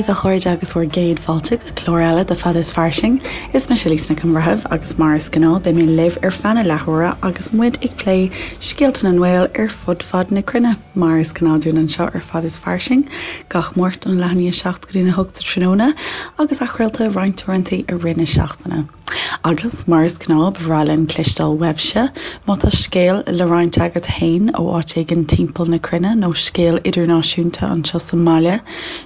daoibh a chairde agus bhur gcéad fáilte go clár eile de Fada is Fairsing. Is mise Lisa Nic an Bhreithimh agus mar is gnáth beidh mé libh ar feadh na leathuaire agus muid ag plé scéalta na nGael ar fud fad na cruinne, mar is gnáth dúinn anseo ar Fada is Fairsing, gach Máirt ón leath i ndiaidh 7 go dtí a 8 sa tráthnóna agus athchraolta roinnt uaireanta i rith na seachtaine. Agus, mar is gnáth, ba bhreá linn cloisteáil uaibhse. Má tá scéal le roinnt agat fhéin ó áit éigin timpeall na cruinne nó scéal idirnáisiúnta anseo sa mbaile,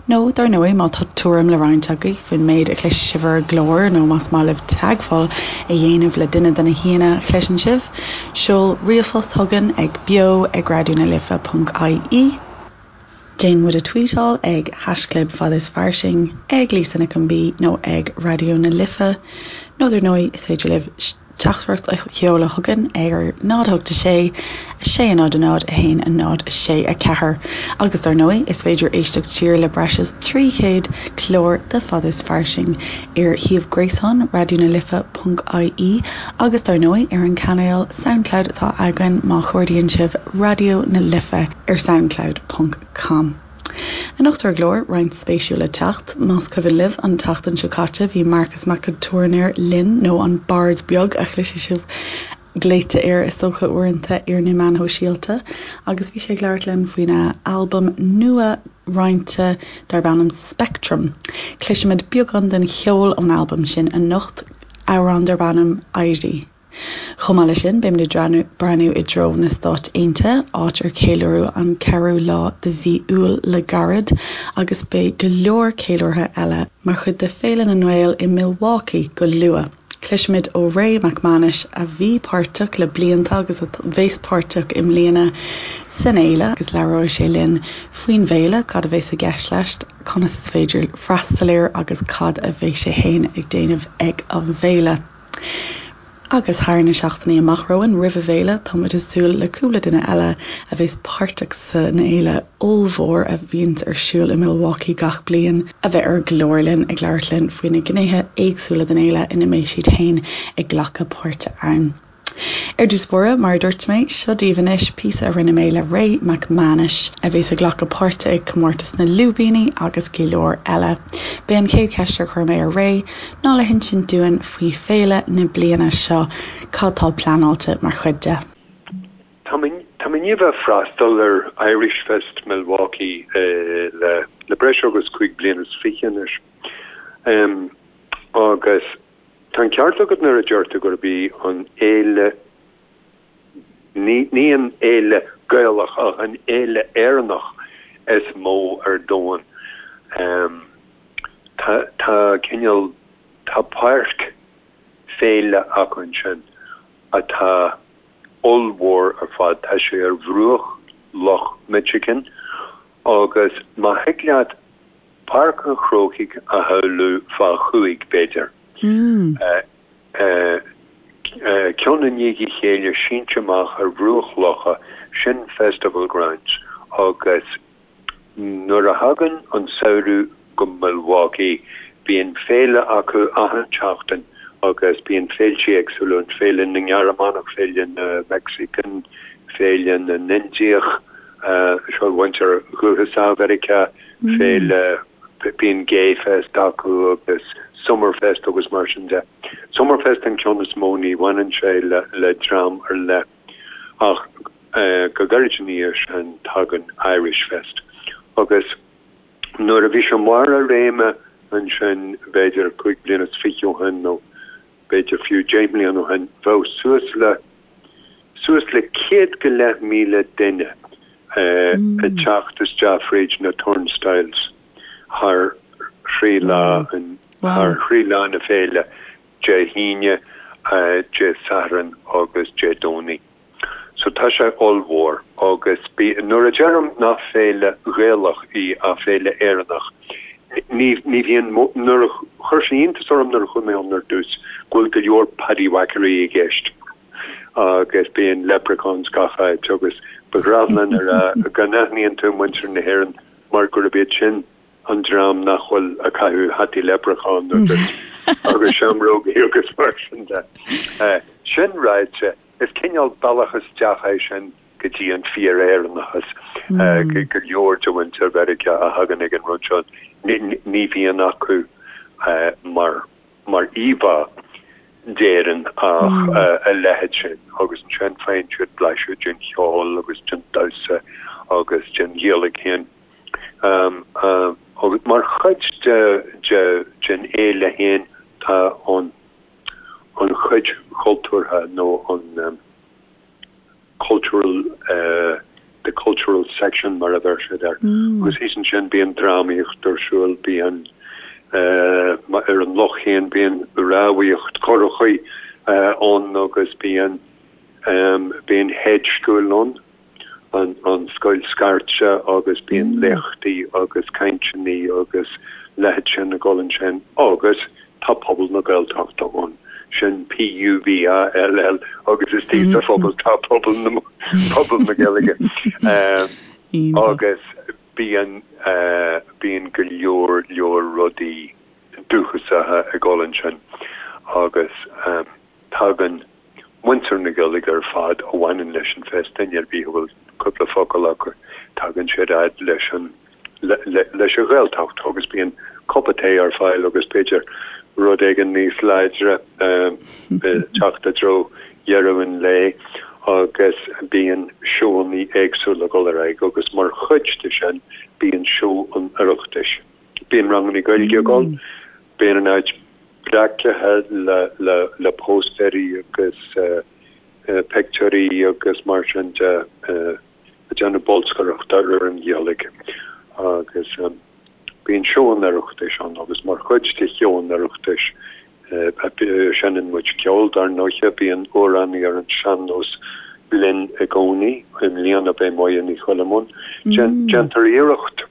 nó, dar ndóigh, má tá tuairim le roinnt agaibh faoin méid a chloisfidh sibh ar an gclár nó más maith libh teagmháil a dhéanamh le duine de na haíonna a chloiseann sibh, seol ríomhphost chugainn ag beo ag raidionalife ponc ie. Déan muid a tweetáil ag haischlib fad is fairsing, ag Lisa Nic an B nó ag Raidió na Life nó dar ndóigh is féidir libh teachtaireacht a sheoladh chugainn ar 0 8 6 6 0 0 1 0 6 4 Agus dar ndóigh is féidir éisteacht siar le breis is 300 clár de Fad is Fairsing ar shuíomh gréasáin Raidió na Life ponc ie agus dar ndóigh ar an cainéal Soundcloud atá againn má chuardaíonn sibh Raidió na Life ar soundcloud ponc com. Anocht ar an gclár, roinnt spéisiúil le teacht. Más cuimhin libh, an tseachtain seo caite bhí Marcus Mac an Tuairneir linn, nó an Bard Beag a chloisfidh sibh glaoite air is dócha uaireanta ar na meáin shóisialta, agus bhí sé ag labhairt linn faoina albam nua roinnte darb ainm Spectrum. Cloisfimid beagán den cheol ón albam sin anocht, amhrán darb ainm Éirí. Chomh maith leis sin, beimid ag breathnú i dtreo na Stáit Aontaithe, áit ar ceiliúradh an ceathrú lá de mhí Iúil le gairid, agus beidh go leor ceiliúrtha eile mar chuid de Féile na nGael i Milwaukee go luath. Cloisfimid ó Ray Mac Mánais, a bhí páirteach le blianta agus a bheas páirteach i mbliana san fhéile, agus labhróidh sé linn faoin bhféile, cad a bheas i gceist leis, conas is féidir freastal air agus cad a bheas sé féin ag déanamh ag an bhféile. Agus thar na seachtainí amach romhainn roimh an bhféile, tá muid ag súil le cúpla duine eile a bheas páirteach san fhéile ollmhór a bhíonns ar siúl i Milwaukee gach bliain, a bheith ar an gclár linn ag labhairt linn faoi na gnéithe éagsúla den fhéile ina mbeidh siad féin ag glacadh páirte ann. Ar dtús báire, mar a dúirt mé, seo daoibh anois píosa a rinne mé le Ray Mac Mánais, a bheas ag glacadh páirte ag Comórtas na Lúibíní agus go leor eile. B'é an chéad cheist ar chuir mé ar Ray ná le hinsint dúinn faoi féile na bliana seo, cad tá pleanáilte mar chuid de. Tá mé i ndiaidh bheith freastal ar Irish Fest Milwaukee le breis agus 25 bliana anois agus Tá an ceart agat nuair a deir tú gurb í an fhéile, ní an fhéile Gaelach ach an fhéile Éireannach is mó ar domhan. Tá, tá cineál, tá páirc féile acu ansin atá ollmhór ar fad. Tá sé ar bhruach Loch Michigan agus má thig leat Páirc an Chrócaigh a shamhlú fá chúig, b'fhéidir. Ceann i ndiaidh a chéile sínte amach ar bhruach locha, sin Festival Grounds agus nuair a thagann an samhradh go Milwaukee bíonn féile acu achan tseachtain agus bíonn féiltí éagsúla ann, féile na nGearmánach, féile na Mexican, féile na nIndiach, seo mhuintir dhúchasach Mheiriceá. féile, bíonn Gay Fest acu agus Summer Fest agus mar sin de. Summer Fest an ceann is mó, ní bhaineann sé le dream ar leith ach go gairid ina dhiaidh sin tagann Irish Fest agus nuair a bhí sé i mbarr a réime ansin b'fhéidir 25 bliana ó shin nó b'fhéidir fiú 10 mbliana ó shin, bheadh suas le suas le 100,000 duine ag teacht isteach fríd na turnstiles thar thrí lá thar thrí lá na féile, Dé hAoine, Dé Sathairn agus Dé Domhnaigh. So tá sé ollmhór agus bí, nuair a deirim nach féile Ghaelach í ach féile Éireannach, ní, ní bhíonn, nuair a, chuir sé iontas orm nuair a chuaigh mé ann ar dtús go bhfuil go leor paddywhackery i gceist agus bíonn leprechauns gach áit agus ba ghnách linn a rá go n-aithníonn tú muintir na hÉireann mar gurb iad sin an dream nach bhfuil ag caitheamh hataí leipreachán agus agus seamrógaí agus mar sin de. Sin ráite, is cineál bealach isteach é sin go dtí an fíor-Éireannachas go leor de mhuintir Mheiriceá a thagann ag an rud seo. Ní bhíonn acu mar mar íomhá d'Éirinn ach a leithéid sin agus ansin faigheann siad blaiseadh den cheol agus den damhsa agus den Ghaeilge féin. Agus mar chuid den fhéile féin tá an an chuid chultúrtha nó an cultural the cultural section mar a bheir siad air. Agus thíos ansin bíonn drámaíocht ar siúl, bíonn ar an loch féin bíonn rámhaíocht currachaí ann agus bíonn bíonn Hedge School ann, an scoil scairte agus bíonn léachtaí agus cainteanna agus leithéid sin ag dul ansin agus Tá Pobal na Gaeltachta ann, sin P-U-B-A-L-L, agus istigh sa phobal tá pobal na, pobal na Gaeilge. Agus bíonn, bíonn go leor leor rudaí dúchasacha ag dul ansin agus tagann muintir na Gaeilge ar fad a bhaineann leis an Fest, duine ar bith a bhfuil cúpla focal acu, tagann siad fhad leis an leis an Ghaeltacht agus bíonn cupa tae ar fáil agus b'fhéidir rud éigin níos láidre ag teacht i dtreo dheireadh an lae agus bíonn seóanna éagsúla ag dul ar aghaidh agus mar chuid de sin bíonn seó an Oireachtais. Bíonn ranganna Gaeilge ag dul, bíonn an áit breacaithe le póstaeirí agus pictiúirí agus mar sin de ag déanamh bolscaireachta ar an Ghaeilge agus bíonn seó an Oireachtais ann agus mar chuid de sheó an Oireachtais seinneann muid ceol dar ndóiche, bíonn amhránaí ar an sean-nós linn i gcónaí, i mbliana beidh Moya Ní Choilm ann. Déantar iarracht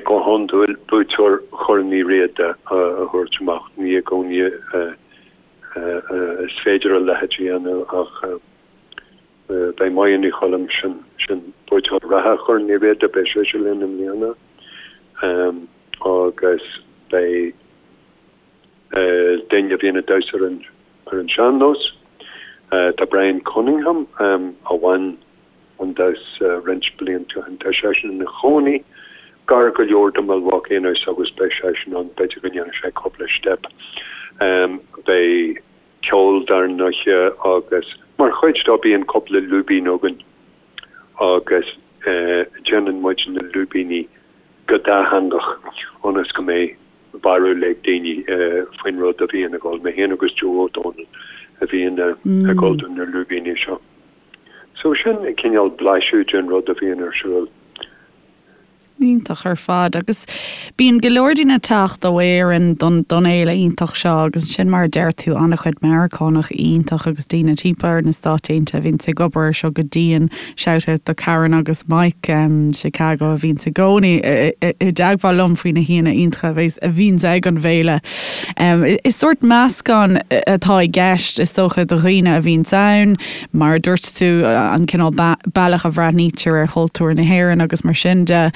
go hiondúil buaiteoir Chorn Uí Riada a thabhairt amach, ní i gcónaí is féidir a leithéid a dhéanamh ach beidh Moya Ní Choilm, sin sin buaiteoir reatha Chorn Uí Riada, beidh sise linn i mbliana agus beidh duine a bhíonn ag damhsa ar an ar an sean-nós. Tá Brian Cunningham a bhain an damhsa roinnt blianta ó shin, tá seisean ina chónaí gar go leor do Milwaukee anois agus beidh seisean ann, b'fhéidir go ndéanfaidh sé cúpla steip. Beidh ceol dar ndóiche agus mar chuid dó bíonn cúpla lúibín againn agus déanann muid na lúibíní go dátheangach ionas go mbeidh barúil ag daoine faoin rud a bhíonn ag dul. Mé féin agus Joe Ó Dónaill a bhíonn ag dul do na lúibíní seo. So sin cineál blaiseadh den rud a bhíonn ar siúl. Iontach ar fad. Agus bíonn go leor daoine ag teacht ó Éirinn don don fhéile iontach seo agus ansin mar a deir tú an-chuid Meiriceánach iontach agus daoine timpeall ar na Stáit Aontaithe a bhíonns ag obair ar seo go dian. Shout out do Karen agus Mike Chicago a bhíonns i gcónaí i dteagmháil liom faoi na haíonna iontacha a bheas a bhíonns ag an bhféile. Is sórt meascán atá i gceist is dócha do dhaoine a bhíonns ann, mar a dúirt tú, an cineál bealach a bhreathnaítear ar chultúr na hÉireann agus mar sin de,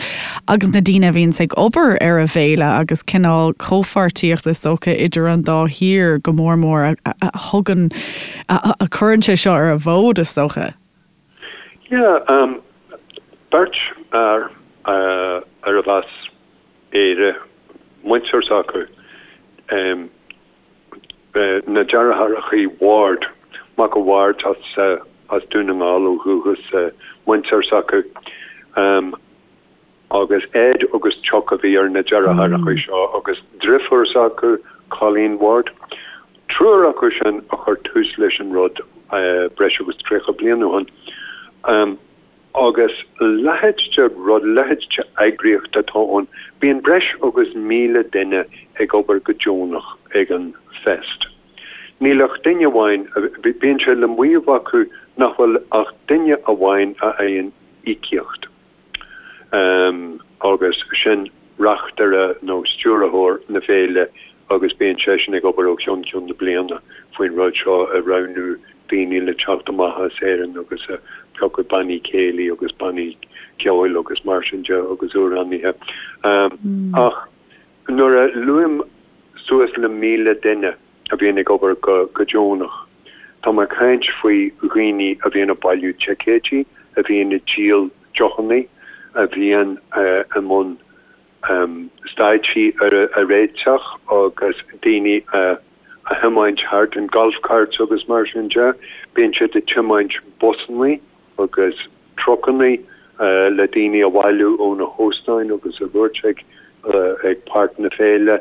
agus na daoine a bhíonns ag obair ar an bhféile agus cineál comhpháirtíocht is dócha idir an dá thír go mór mór a thugann, a chuireann sé seo ar an bhfód is dócha. Yeah, beirt fhear arbh as Éire muintir s'acu, na deartháireacha Ward, Mac a' Bhaird as Dún na nGall ó dhúchas, muintir s'acu, agus Ed agus Chuck a bhí ar na deartháireacha seo agus driofúr s'acu, Colleen Ward. Triúr acu sin a chuir tús leis an rud breis agus 30 bliain ó shin. Agus a leithéid de rud, a leithéid de eagraíocht atá ann. Bíonn breis agus 1,000 duine ag obair go deonach ag an Fest. Níl ach duine amháin, bíonn sé le maíomh acu nach bhfuil ach duine amháin a fhaigheann íocaíocht. agus sin reachtaire nó stiúrthóir na féile agus bíonn seisean ag obair ó cheann ceann na bliana faoin rud seo, ag roghnú daoine le teacht amach as Éirinn agus ag piocadh bannaí céilí agus bannaí ceoil agus mar sin de agus amhránaithe. Ach nuair a luaim suas le 1,000 duine a bhíonn ag obair go deonach, tá mé ag caint faoi dhaoine a bhíonn ag bailiú ticéidí, a bhíonn ag díol deochanna, a bhíonn i mbun. stáitsí a réiteach agus daoine a thiomáint thart in golf carts agus mar sin de. Bíonn siad ag tiomáint busannaí agus trucannaí le daoine a bhailiú ó na hóstáin agus a thabhairt ag ag páirc na féile.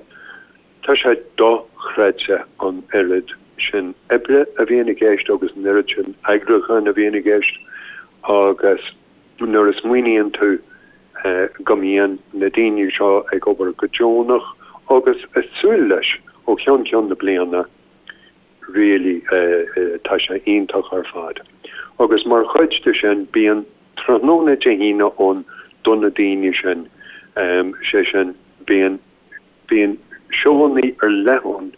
Tá sé dochreidte an oiread sin oibre a bhíonn i gceist agus an oiread sin eagrúcháin a bhíonn i gceist agus nuair a smaoiníonn tú go mbíonn na daoine seo ag obair go deonach agus ag súil leis ó cheann ceann na bliana, really tá sé iontach ar fad. Agus mar chuid de sin bíonn tráthnóna Dé hAoine ann do na daoine sin, sé sin bíonn Bíonn seóanna ar leith ann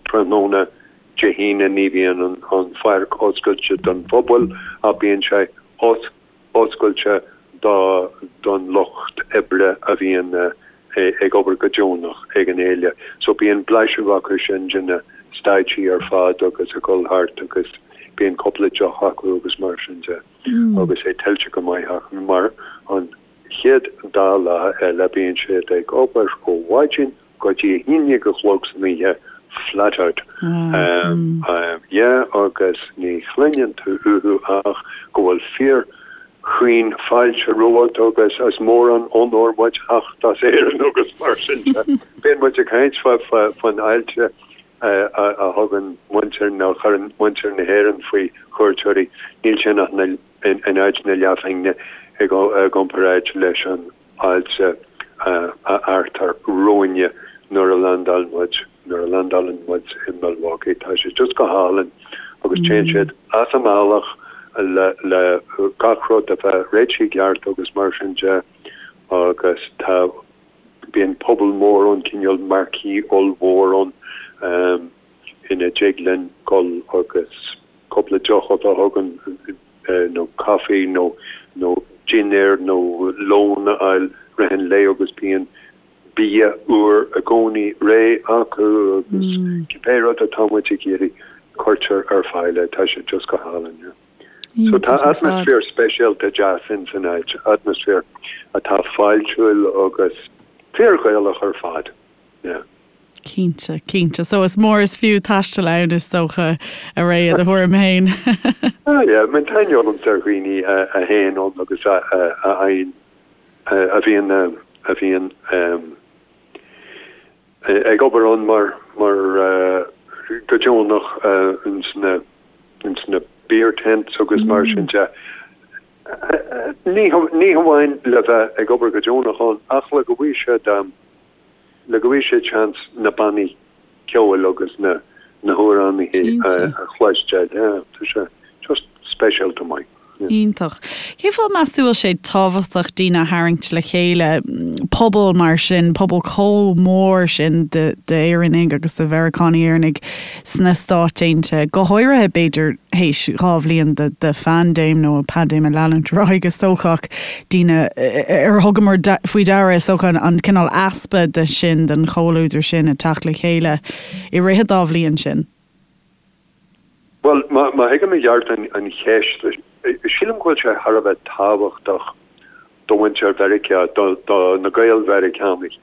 tráthnóna Dé hAoine, ní bhíonn an pháirc oscailte don phobal ach bíonn sé oscailte don lucht oibre a bhíonn ag obair go deonach ag an fhéile. So bíonn blaiseadh acu sin de na stáitsí ar fad agus ag dul thart agus bíonn cúpla deoch acu agus mar sin de agus é tuillte go maith acu mar an chéad dá lá eile bíonn siad ag obair ó mhaidin go dtí a haon déag a chlog san oíche flat out. Yeah agus ní chluineann tú uathu ach go bhfuil fíor chaoin fáilte romhat agus is mór an onóir muid theacht as Éirinn agus mar sin de. Bíonn muid ag caint faoin fháilte a thugann muintir nó a chuireann muintir na hÉireann faoi chuairteoirí. Níl sin ach na. in áit na leathphingne i gcomparáid leis an fháilte a fheartar romhainne nuair a landáil muid, nuair a landálann muid i Milwaukee. Tá sé just go hálainn agus téann siad as a mbealach le le gach rud a bheith réitithe i gceart agus mar sin de agus tá, bíonn puball mór ann, cineál marquee ollmhór ann ina dtig linn dul agus. cúpla deoch a bheith againn nó caife nó nó dinnéar nó lón a fháil rith an lae agus bíonn bia úr i gcónaí réidh acu agus cibé rud atá muid ag iarraidh cuirtear ar fáil é. Tá sé just go hálainn, yeah. So tá atmaisféar speisialta deas ins an áit, atmaisféar atá fáiltiúil agus fíor-Ghaelach ar fad, yeah. Cinnte, cinnte. So is mór is fiú taisteal ann is dócha, a Ray, i do thuairim féin. Ah yeah, I mean tá aithne agamsa ar dhaoine a théann ann agus a fhaigheann, a bhíonn, a bhíonn ag obair ann mar, mar go deonach ins na, ins na beer tents agus mar sin de. Ní, ní hamháin le bheith ag obair go deonach ann ach le go bhfaighidh siad, le go bhfaighidh siad seans na bannaí ceoil agus na na hamhránaithe a chloisteáil. Yeah, tá sé just speisialta maith. Yeah. Iontach. Cén fáth meas tú bhfuil sé tábhachtach daoine a tharraingt le chéile, pobal mar sin, pobal chomh mór sin d'Éireannaigh agus de Mheiriceánaigh Éireannaigh sna Stáit Aontaithe, go háirithe b'fhéidir théis 2 bhliain de phaindéim nó paindéim ag leanúint ar aghaidh is dócha ach daoine ar thugamar faoi deara is dócha an cineál easpa de sin, den chomhluadar sin ag teacht le chéile i rith an dá bhliain sin. Bhuel, má thuigim i gceart an cheist, sílim go bhfuil sé thar a bheith tábhachtach do mhuintir Mheiriceá, do na Gael-Mheiriceánaigh,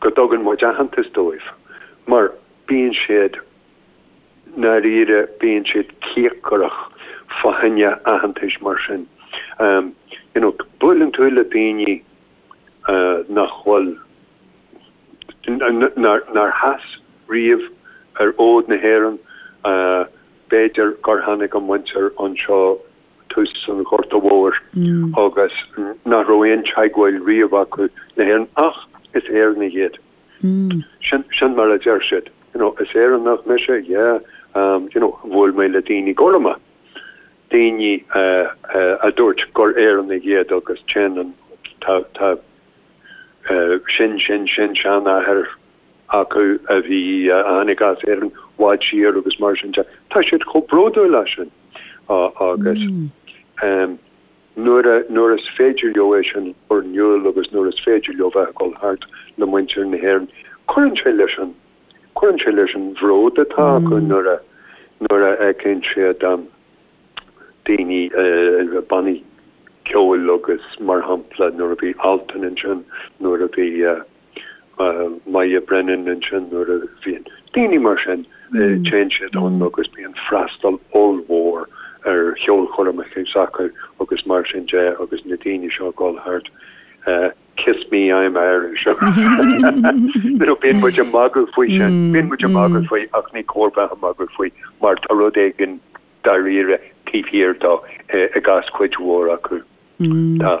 go dtugann muid aitheantas dóibh mar bíonn siad ndáiríre, bíonn siad cíocrach fá choinne aitheantais mar sin. You know, buaileann tú le daoine nach bhfuil, nár sheas riamh ar fhód na hÉireann, b'fhéidir gur tháinig a muintir anseo tús an Ghorta Mhóir agus nach raibh aon teagmháil riamh acu le hÉirinn ach is Éireannaigh iad. Sin, sin mar a deir siad. You know, is Éireannach mise, yeah, you know, bhuail mé le daoine gorma, daoine a dúirt gur Éireannaigh iad agus téann an, tá, tá sin, sin, sin seanathair acu a bhí, a tháinig as Éirinn i bhfad siar agus mar sin de. Tá siad chomh bródúil as sin agus nuair a, nuair is féidir leo é sin a chur in iúl agus nuair is féidir leo bheith ag dul thart le muintir na hÉireann, cuireann sé leis an, cuireann sé leis an bhród atá acu nuair a, nuair a fheiceann siad daoine, bannaí. ceoil agus mar shampla nuair a bhí Altan ansin, nuair a bhí Moya Brennan ansin, nuair a bhíonn daoine mar sin, téann siad ann agus bíonn freastal ollmhór ar cheolchoirmeacha s'acu agus mar sin de agus na daoine seo ag dul thart. Kiss me, I'm Irish. You know, bíonn muid ag magadh faoi sin, bíonn muid ag magadh faoi ach ní cóir bheith ag magadh faoi mar tá rud éigin dáiríre taobh thiar dó i gcás cuid mhór acu. Tá.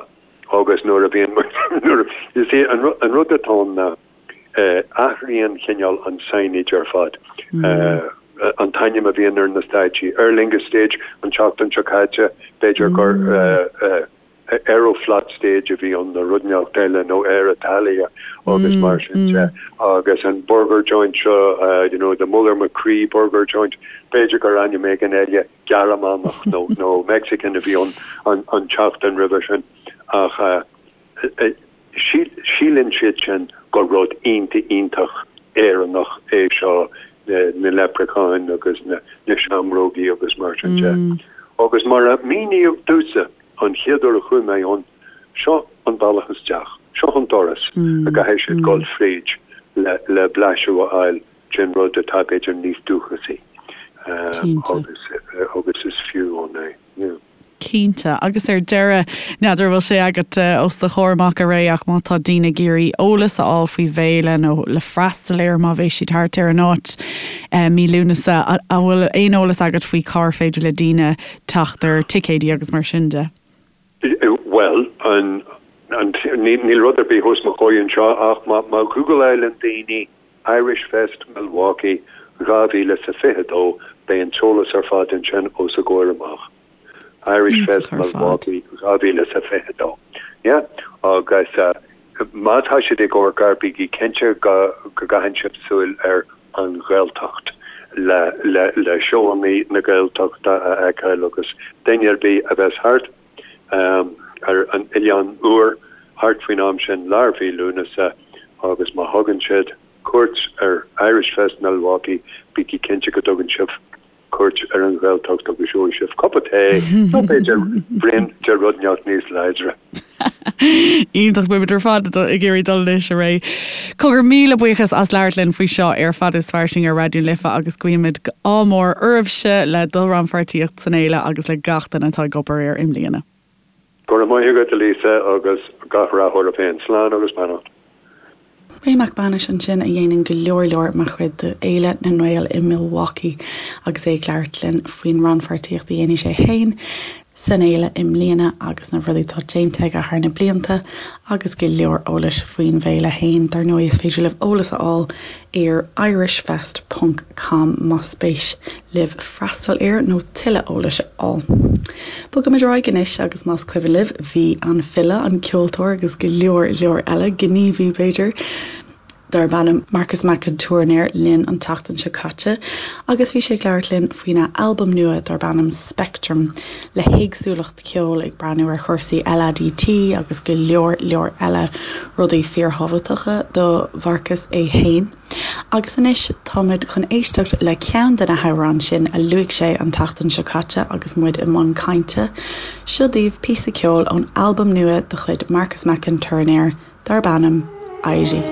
Agus nuair a bhíonn muid, nuair a, you see, an rud atá ann ná athraíonn cineál an signage ar fad. An t-ainm a bhíonn ar na stáitsí. Aer Lingus Stage an tseachtain seo caite, b'fhéidir gur Aeroflot Stage a bhí ann nó rud inteacht eile nó Air Italia agus mar sin de. Agus an burger joint seo, you know, the Muller McCree burger joint, b'fhéidir gur ainm éigin eile Gearmánach nó nó Mexican a bhí ann an tseachtain roimhe sin. Ach síleann siad sin gur rud iontach iontach Éireannach é seo, na leipreacháin agus na seamrógaí agus mar sin de. Agus mar a míníodh domhsa an chéad uair a chuaigh mé ann, seo an bealach isteach, seo an doras a gcaithfidh siad dul fríd le blaiseadh a fháil den rud atá b'fhéidir níos dúchasaí agus agus is fiú ann é. Yeah. Cinnte. Agus ar deireadh, n'fheadar an bhfuil sé agat os do chomhair amach a Ray ach má tá daoine ag iarraidh eolas a fháil faoin bhféile nó le freastal air má bheidh siad thart ar an áit mí Lúnasa, an bhfuil aon eolas agat faoi cár féidir le daoine teacht ar ticéidí agus mar sin de? Bhuel, níl rud ar bith os mo chomhair anseo ach má ghúgláileann daoine Irish Fest Milwaukee 2022 beidh an t-eolas ar fad ansin os a gcomhair amach. Irish Fest Milwaukee 2022. Yeah. Agus má tá siad ag amharc air bígí cinnte go gcaitheann sibh súil ar An Ghaeltacht le le seóanna na Gaeltachta a fheiceáil agus duine ar bith a bheas thart ar an Oileán Úr thart faoin am sin, lár mhí Lúnasa, agus má thugann siad cuairt ar Irish Fest Milwaukee, bígí cinnte go dtugann sibh cuairt ar an Ghaeltacht agus gheobhaidh sibh cupa tae nó b'fhéidir braon de rud inteacht níos láidre. Iontach, beimid ar fad ag iarraidh dul anois, a Ray. Cogar, míle buíochas as labhairt linn faoi seo ar Fada is Fairsing ar Raidió na Life agus guímid ádh mór oraibhse le do rannpháirtíocht san fhéile agus le gach duine atá ag obair air i mbliana. Go raibh maith agat, a Lisa, agus gach rath oraibh féin. Slán agus beannacht. Ray Mac Beanais ansin a dhéanann go leor leor mar chuid de Fhéile na nGael i Milwaukee agus é ag labhairt linn faoin rannpháirtíocht a dhéanfaidh sé féin san fhéile i mbliana agus na rudaí atá déanta aige thar na blianta agus go leor eolais faoin bhféile féin. Dar ndóigh is féidir libh eolas a fháil ar irishfest ponc com más spéis libh freastal air nó tuilleadh eolais a fháil. Bogaimid ar aghaidh anois agus más cuimhin libh bhí an file, an ceoltóir agus go leor leor eile, gníomhaí b'fhéidir, darb ainm Marcus Mac an Tuairneir linn an tseachtain seo caite agus bhí sé ag labhairt linn faoina albam nua darb ainm Spectrum le héagsúlacht ceoil ag breathnú ar chúrsaí LADT agus go leor leor eile rudaí fíorthábhachtacha do Mharcus é féin. Agus anois táimid chun éisteacht le ceann de na hamhráin sin a luaigh sé an tseachtain seo caite agus muid i mbun cainte. Seo daoibh píosa ceoil ón albam nua de chuid Marcus Mac an Tuairneir darb ainm Éirí.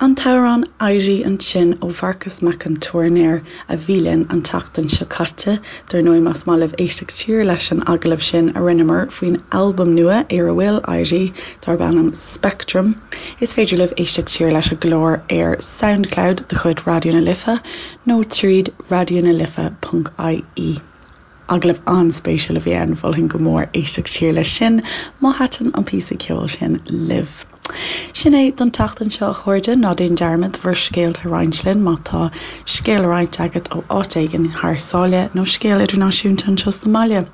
An t-amhrán 'Éirí' ansin ó Mharcas Mac an Tuairneir a bhí linn an tseachtain seo caite. Dar ndóigh más maith libh éisteacht siar leis an agallamh sin a rinneamar faoin albam nua ar a bhfuil 'Éirí' darb ainm 'Spectrum', is féidir libh éisteacht siar leis an gclár ar Soundcloud de chuid Raidió na Life nó tríd raidionalife ponc ie. Agallamh an-spéisiúil a bhí ann, mholfainn go mór éisteacht siar leis sin má thaitin an píosa ceoil sin libh. Sin é don tseachtain seo a chairde, ná déan dearmad bhur scéalta a roinnt linn má tá scéal le roinnt agat ó áit éigin thar sáile nó scéal idirnáisiúnta anseo sa mbaile.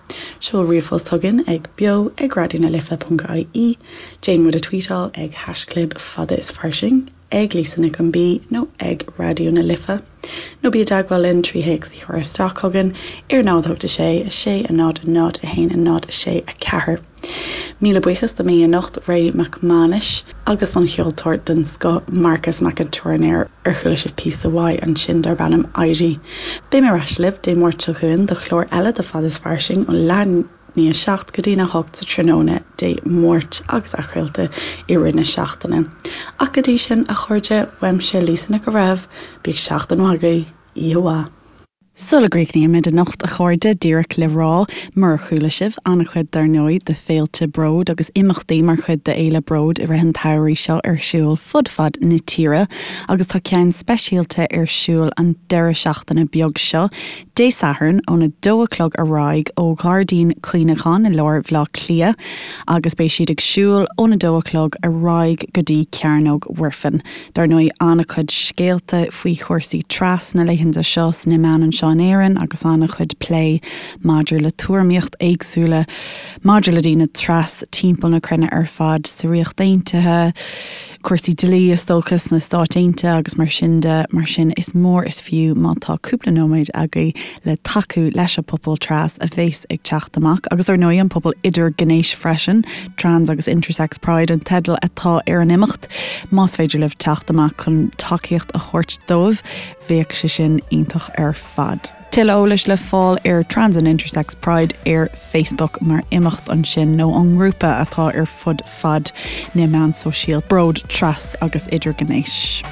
Seol ríomhphost chugainn ag beo ag raidionalife.ie, déan muid a tweetáil ag haischlib fada is fairsing. ag Lisa Nic an B nó ag Raidió na Life, nó bí i dteagmháil linn trí théacs a chur isteach chugainn ar 0 8 6 6 0 0 1 0 6 4. Míle buíochas do m'aoi anocht, Ray Mac Mánais, agus don cheoltóir den scoth, Marcas Mac an Tuairneir, ar chuala sibh píosa uaidh ansin darb ainm Éirí. Beidh mé ar ais libh Dé Máirt seo chugainn do chlár eile de Fada is Fairsing ó leath ndiaidh 7 go dtína 8 sa tráthnóna Dé Máirt agus athchraolta i rith na seachtaine. Ach go dtí sin, a chairde, uaimse Lisa Nic an Bhreithimh, bíodh seachtain mhaith agaibh, oíche mhaith. Sula gcríochnaímid anocht, a chairde, díreach le rá, murar chuala sibh, an-chuid dar ndóigh de féilte Bród agus imeachtaí mar chuid de Fhéile Bród i rith an tsamhraidh seo ar siúl fud fad na tíre agus tá ceann speisialta ar siúl an deireadh seachtaine beag seo, Dé Sathairn óna dó a chlog ar aghaidh ó Ghairdín Cuimhneacháin i lár Bhaile Átha Cliath agus beidh siad ag siúl óna dó a chlog ar aghaidh go dtí Cearnóg Mhuirfean. Dar ndóigh an-chuid scéalta faoi chúrsaí tras na laethanta seo sna meáin anseo in Éirinn agus an-chuid plé maidir le tuairimíocht éagsúla maidir le daoine tras timpeall na cruinne ar fad sa Ríocht Aontaithe, cúrsaí dlí is dócha sna Stáit Aontaithe agus mar sin de. Mar sin is mór is fiú má tá cúpla nóiméad agaibh le tacú leis an pobal tras a bhéas ag teacht amach agus ar ndóigh an pobal idirghnéis freisin, Trans agus Intersex Pride an teideal atá ar an imeacht. Más féidir libh teacht amach chun tacaíocht a thabhairt dóibh bheadh sé sin iontach ar fad. Tuilleadh eolais le fáil ar Trans and Intersex Pride ar Facebook mar imeacht ansin nó an ngrúpa atá ar fud fad na meán sóisialta, Bród Tras agus Idirghnéis.